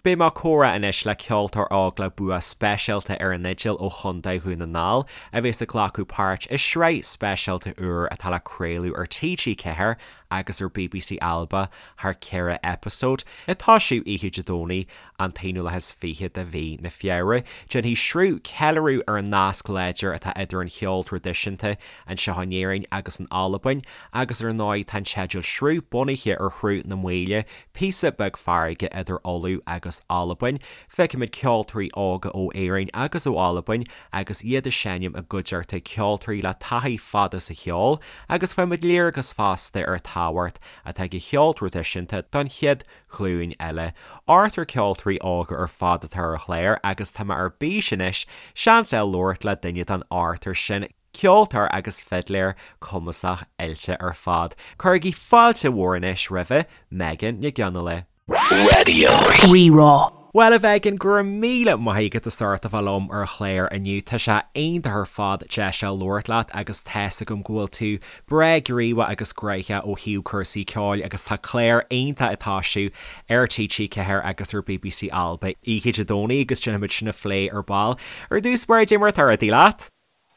Beidh mé ag comhrá anois le ceoltóir óg le bua speisialta ar an fhidil ó Chontae Dhún na nGall a bheas ag glacadh páirt i sraith speisialta úr atá le craoladh ar TG4 agus ar bbc Alba thar 4 eipeasóid, ag toisiú oíche Dé Domhnaigh an t-21ú de mhí na Feabhra. Déanfaidh Sruth ceiliúradh ar an nasc láidir atá idir an cheol traidisiúnta anseo in Éirinn agus in Albain agus ar ndóigh tá an teideal Sruth bunaithe ar Shruth na Maoile, Píosa beag farraige idir Ulaidh agus Albain. Feicfimid ceoltóirí óga ó Éirinn agus ó Albain agus iad ag seinm i gcuideachta ceoltóirí le taithí fada sa cheol agus faighimid léargas fosta ar an tábhacht atá ag an cheol traidisiúnta don chéad ghlúin eile. Ochtar ceoltóirí óga ar fad atá ar an chlár agus tá mé ar bís anois seans a fháil labhairt le duine den ochtar sin. Ceoltóir agus fidléir cumasach oilte ar fad. Cuirigí fáilte mhór anois roimhe, Megan Nic Fhionnghaile. Raidió Rí-Rá. Bhuel, a Mhegan, go raibh míle maith agat as ucht a bheith liom ar an chlár inniu. Tá sé iontach ar fad deis a labhairt leat agus tá's agam go bhfuil tú breá gníomhach agus gnoitheach ó thaobh cúrsaí ceoil agus tá clár iontach ag toisiú ar TG4 agus ar bbc Alba oíche Dé Domhnaigh agus déanfaimid sin a phlé ar ball. Ar dtús báire, cad é mar atá rudaí leat?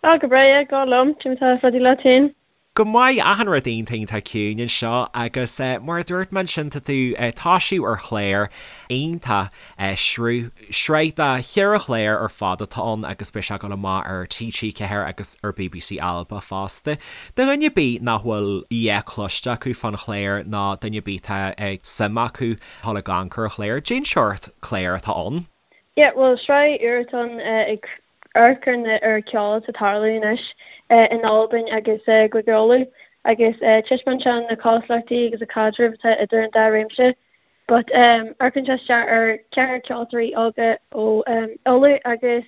Ah, go breá, yeah, go liom, cad é mar atá rudaí leat féin. Go maith, achan rud iontach iontach ciúin anseo agus mar a dúirt mé ansin tá tú ag toisiú ar chlár iontach sruth, sraith de cheithre chlár ar fad atá ann agus beidh sé ag dul amach ar TG4 agus ar bbc Alba fosta. Do dhuine ar bith nach bhfuil a dhath cloiste acu fán chlár nó duine ar bith atá suim acu dul ag amharc ar an chlár, cén seort clár atá ann? Yeah, bhuel sraith úr atá ann ag amharc ar na ar ceol atá ag tarlú anois in Albain agus i gCúige Uladh agus taispeánann sé na cosúlachtaí agus an caidreamh atá idir an dá réimse. But amharcann sé isteach ar cheathrar ceoltóirí óga ó Uladh agus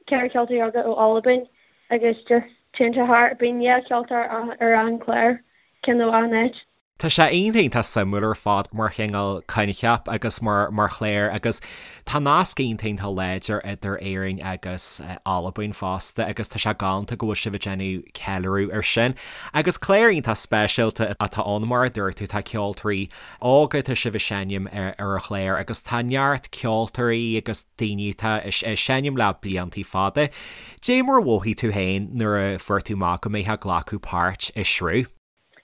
ceathrar ceoltóirí óga ó Albain agus just téann sé thar, bíonn dhá cheoltóir ar an chlár, ceann ó achan áit. Tá sé iontach iontach suimiúil ar fad mar chineál coincheap agus mar mar chlár agus tá nasc iontach iontach láidir idir Éirinn agus Albain fosta agus tá sé galánta go bhfuil sibh ag déanamh ceiliúradh ar sin. Agus clár iontach speisialta atá ann mar a dúirt tú tá ceoltóirí óga tá sibh ag seinm ar ar an chlár agus tá neart ceoltóirí agus daoine atá ag seinm le bliantaí fada. Dé mar a mhothaigh tú féin nuair a fuair tú amach go mbeifeá ag glacadh páirt i Sruth?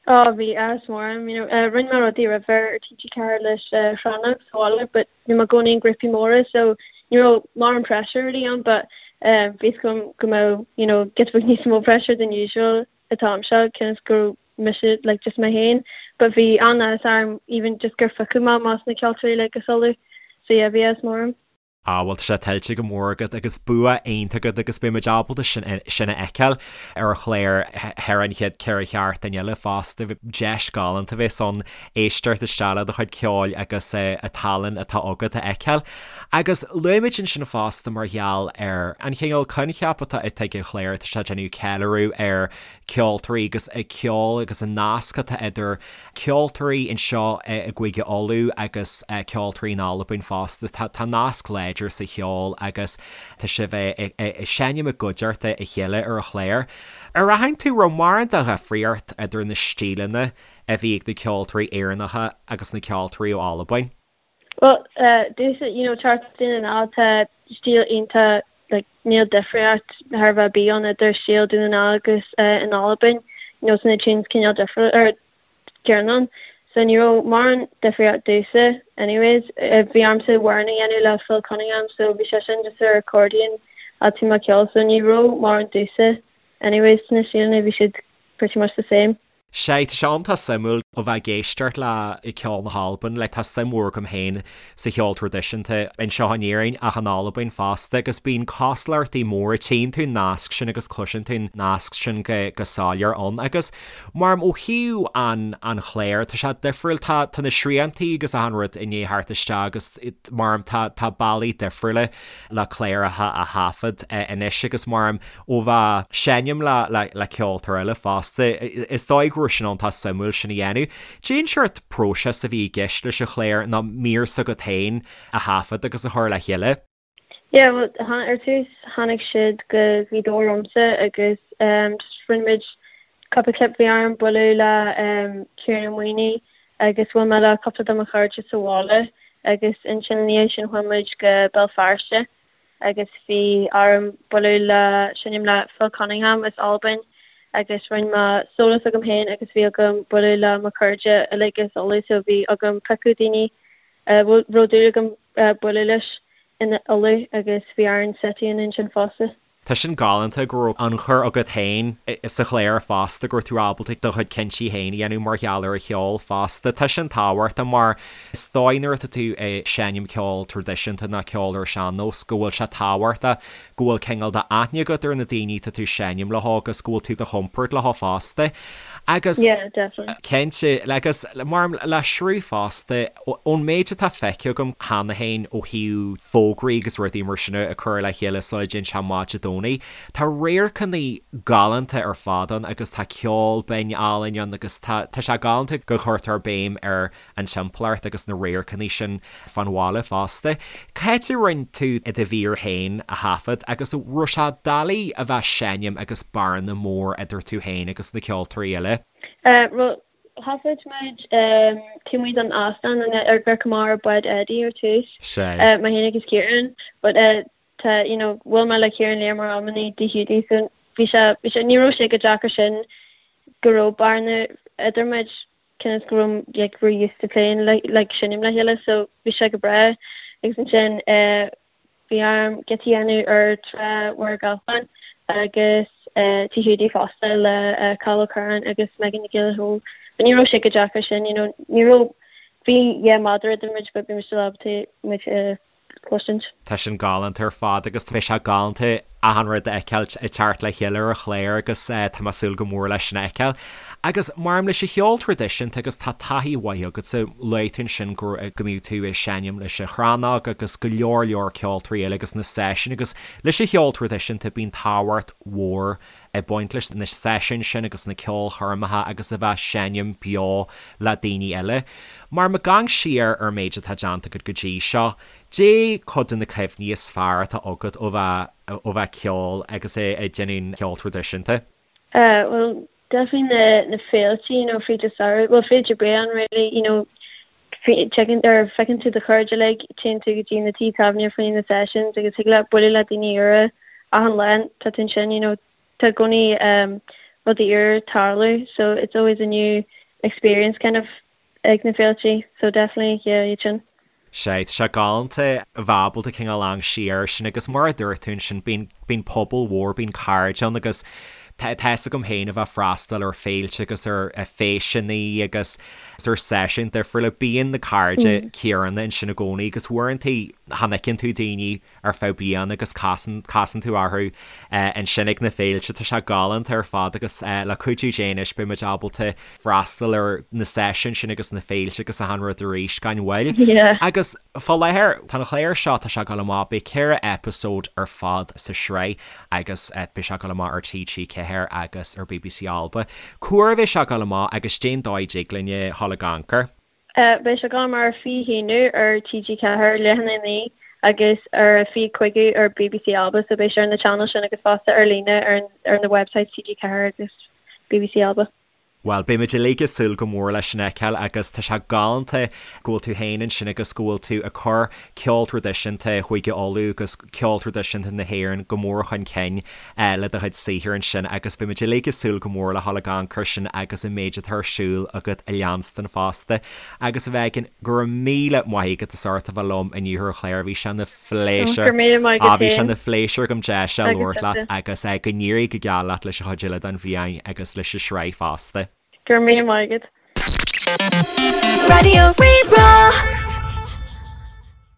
Oh bhí áthas mór orm, you know, rinne mé rudaí roimhe ar TG4 leis Shrannach sa bhaile but bhí mé i gcónaí in grúpaí móra so ní raibh mórán pressure really ann but bhí fhios agam go mbeadh, you know, giota beag níos mó pressure than usual an t-am seo cionn is go raibh mise like just mé féin but bhí an-áthas orm even just gur phiocadh mé amach as na ceoltóirí like as Uladh so yeah bhí áthas mór orm. Ah bhuel tá sé tuillte go mór agat agus bua iontach agat agus beidh muid ábalta sin sin a fheiceáil ar an chlár thar an chéad 4 sheachtain eile fosta. Deis galánta a bheas ann éisteacht isteach le do chuid ceoil agus an tallann atá agat a fheiceáil. Agus luaigh muid ansin fosta mar gheall ar an chineál coincheap atá ag an chlár, tá sé ag déanamh ceiliúradh ar ceoltóirí agus an ceol agus an nasc atá idir ceoltóirí anseo i gCúige Uladh agus ceoltóirí in Albain fosta. Tá nasc láidir sa cheol agus tá sibh ag seinm i gcuideachta a chéile ar an chlár. Ar aithin tú raibh mórán de dhifríocht idir na stíleanna a bhí ag na ceoltóirí Éireannacha agus na ceoltóirí ó Albain? Bhuel, domhsa, you know, teacht as Dún na nGall, tá stíl iontach, like, níl difríocht thar a bheith ar bith ann idir stíl Dún na nGall agus in Albain, you know, tá na tunes cineál difriúil, or céanna ann. So ní raibh mórán difríocht domhsa, anyways. Bhí ormsa amhrán a dhéanamh le Phil Cunningham, so bhí sé sin just ar accordion a bhí mé ag ceol, so ní raibh mórán domhsa, anyways, sna stíleanna, bhí siad pretty much the same. Sea, tá sé iontach suimiúil ó bheith ag éisteacht le ceol na hAlban, like tá suim mhór agam féin sa cheol traidisiúnta anseo in Éirinn ach in Albain fosta agus bíonn cosúlachtaí móra, tchíonn tú an nasc sin agus cloiseann tú an nasc sin go go soiléir ann agus mar ó thaobh an an chláir tá sé difriúil, tá tá na sriantaí agus achan rud i ndiaidh theacht isteach agus mar tá tá bealaí difriúla le cláracha a thaifead anois agus mar ó bheith seinm le le ceoltóir eile fosta, is dóigh go raibh sin iontach suimiúil sin a dhéanamh. Cén seort próiseas a bhí i gceist leis an chlár nó mír s'agat féin a thaifead agus a chur le chéile? Yeah, bhuel, ar tús tháinig siad go Gaoth Dobhair ormsa agus just rinne muid cúpla clip, bhí orm bualadh le Ciarán Ó Maonaigh agus bhuail mé le cúpla de mo chairde sa bhaile. Agus ansin ina dhiaidh sin chuaigh muid go Béal Feirste agus bhí orm bualadh le, seinm le Phil Cunningham as Albain agus rinne mé solo s'agam féin agus bhí agam bualadh le mo chairde uilig as Uladh so bhí agam piocadh daoine a raibh dúil agam bualadh leis in Uladh agus bhí orainn set a dhéanamh ansin fosta. Tá sin galánta go raibh ionchur agat féin sa chlár fosta, go raibh tú ábalta do chuid cinntí féin a dhéanamh mar gheall ar an cheol fosta. Tá sin tábhachtach mar is dóigh nuair atá tú ag seinm ceol traidisiúnta nó ceol ar sean-nós go bhfuil sé tábhachtach go bhfuil cineál de aithne agat ar na daoine atá tú ag seinm leo agus go bhfuil tú i do chompord leo fosta. Agus Yeah, definitely. cinnte, agus mar le sruth fosta, Ón méid atá feicthe agam cheana féin ó thaobh fógraí agus rudaí mar sin a chur le chéile sula dtéann sé amach Dé Domhnaigh, tá radharcanna galánta ar fad ann agus tá ceol binn álainn ann agus tá tá sé galánta go gcuirtear béim ar an timpeallacht agus na radharcanna sin fán bhaile fosta. Cá háit a rinne tú do mhír féin a thaifead agus an raibh sé doiligh a bheith ag seinm agus bearna mór idir tú féin agus na ceoltóirí eile? Bhuel, Thaifead muid taobh amuigh den óstán ar Ghort Mór Bád Eddie ar tús, mé féin agus Ciaran, but tá, you know, bhuail mé le Ciaran léir mar iománaí i dTigh Hiúdaí so bhí sé, bhí sé, ní raibh sé chomh deacair sin go raibh bearna idir muid cionn is go raibh, like, we're used to playing like, like seinm le chéile so bhí sé go breá agus ansin eh Bhí orm giota a dhéanamh ar Trá Mhachaire Gathlán agus Tigh Hiúdaí fosta le Cathal Ó Curráin agus Megan Nic Giolla Chóill. But ní raibh sé chomh deacair sin, you know, ní raibh, bhí yeah méadar idir muid but bhí muid still ábalta muid a chloisint. Tá sin galánta ar fad agus beidh sé galánta achan rud a fheiceáil ag teacht le chéile ar an chlár agus tá mé ag súil go mór leis sin a fheiceáil. Agus maidir leis an cheol traidisiúnta agus tá taithí mhaith agatsa, luaigh tú ansin go go mbíodh tú ag seinm leis an Chrannóg agus go leor leor ceoltóirí eile agus na seisiúin agus leis an cheol traidisiúnta bíonn tábhacht mhór ag baint leis na seisiúin sin agus na ceolchoirmeacha agus a bheith ag seinm beo le daoine eile. Mar má amharcann siar ar an méid atá déanta agat go dtí seo, Dé cuid de na cuimhní is fearr atá agat ó bheith ó bheith ag ceol agus ag déanamh ceol traidisiúnta? Bhuel, definitely na na féilte, you know, fríd an samhradh, bhuel, fríd an bhliain really, you know, teigeann or feiceann tú do chairde uilig, téann tú go dtí na tithe tábhairne faoi na sessions agus thig leat bualadh le daoine úra achan lá tá tú ansin, you know, tá i gcónaí um, rudaí úr ag tarlú so it's always a new experience kind of ag na féilte so definitely yeah iad sin. Sea, tá sé galánta a bheith ábalta cineál amharc siar air sin agus mar a dúirt tú ansin bíonn, bíonn pobal mhór, bíonn cairde ann agus tá, tá fhios agam féin a bheith ag freastal ar féilte agus ar feiseanna agus ar seisiúin difriúla, bíonn na cairde céanna ansin i gcónaí agus uaireanta chan fheiceann tú daoine ar feadh bliana agus casann casann tú orthu ansin ag na féilte. Tá sé galánta ar fad agus le cuidiú Dé anois beidh muid ábalta freastal ar na seisiúin sin agus na féilte agus achan rud arís gan mhoill. Agus fá láthair, tá an clár seo, tá sé ag dul amach, beidh 4 eipeasóid ar fad sa sraith agus beidh sé ag dul amach ar TG4 agus ar bbc Alba. Cá huair a bheidh sé ag dul amach agus dén dóigh a dtig linn a dhul ag amharc air? Beidh sé ag dul amach ar 21 ar TG4, leath i ndiaidh a 9, agus ar a 25 ar bbc Alba, so beidh sé ar na channels sin agus fosta ar líne ar ar na websites TG4 agus bbc Alba. Bhuel, beidh muid uilig ag súil go mór leis sin a fheiceáil agus tá sé galánta go bhfuil tú féin ansin agus go bhfuil tú ag cur ceol traidisiúnta Chúige Uladh agus ceol traidisiúnta na hÉireann go mór chun cinn le do chuid saothair ansin agus beidh muid uilig ag súil go mór le dhul ag amharc air sin agus an méid atá ar siúl agat a leanstan fosta. Agus a Mhegan, go raibh míle maith agat as ucht a bheith liom inniu ar an chlár, bhí sé ina phléisiúr, Go raibh míle maith agat bhí sé féin. ina phléisiúr agam deis a Agus labhairt leat tusa. agus go n-éirí go geal leat leis an chuid eile den bhliain agus leis an sraith fosta. Go raibh míle maith agat. Raidió Rí-Rá.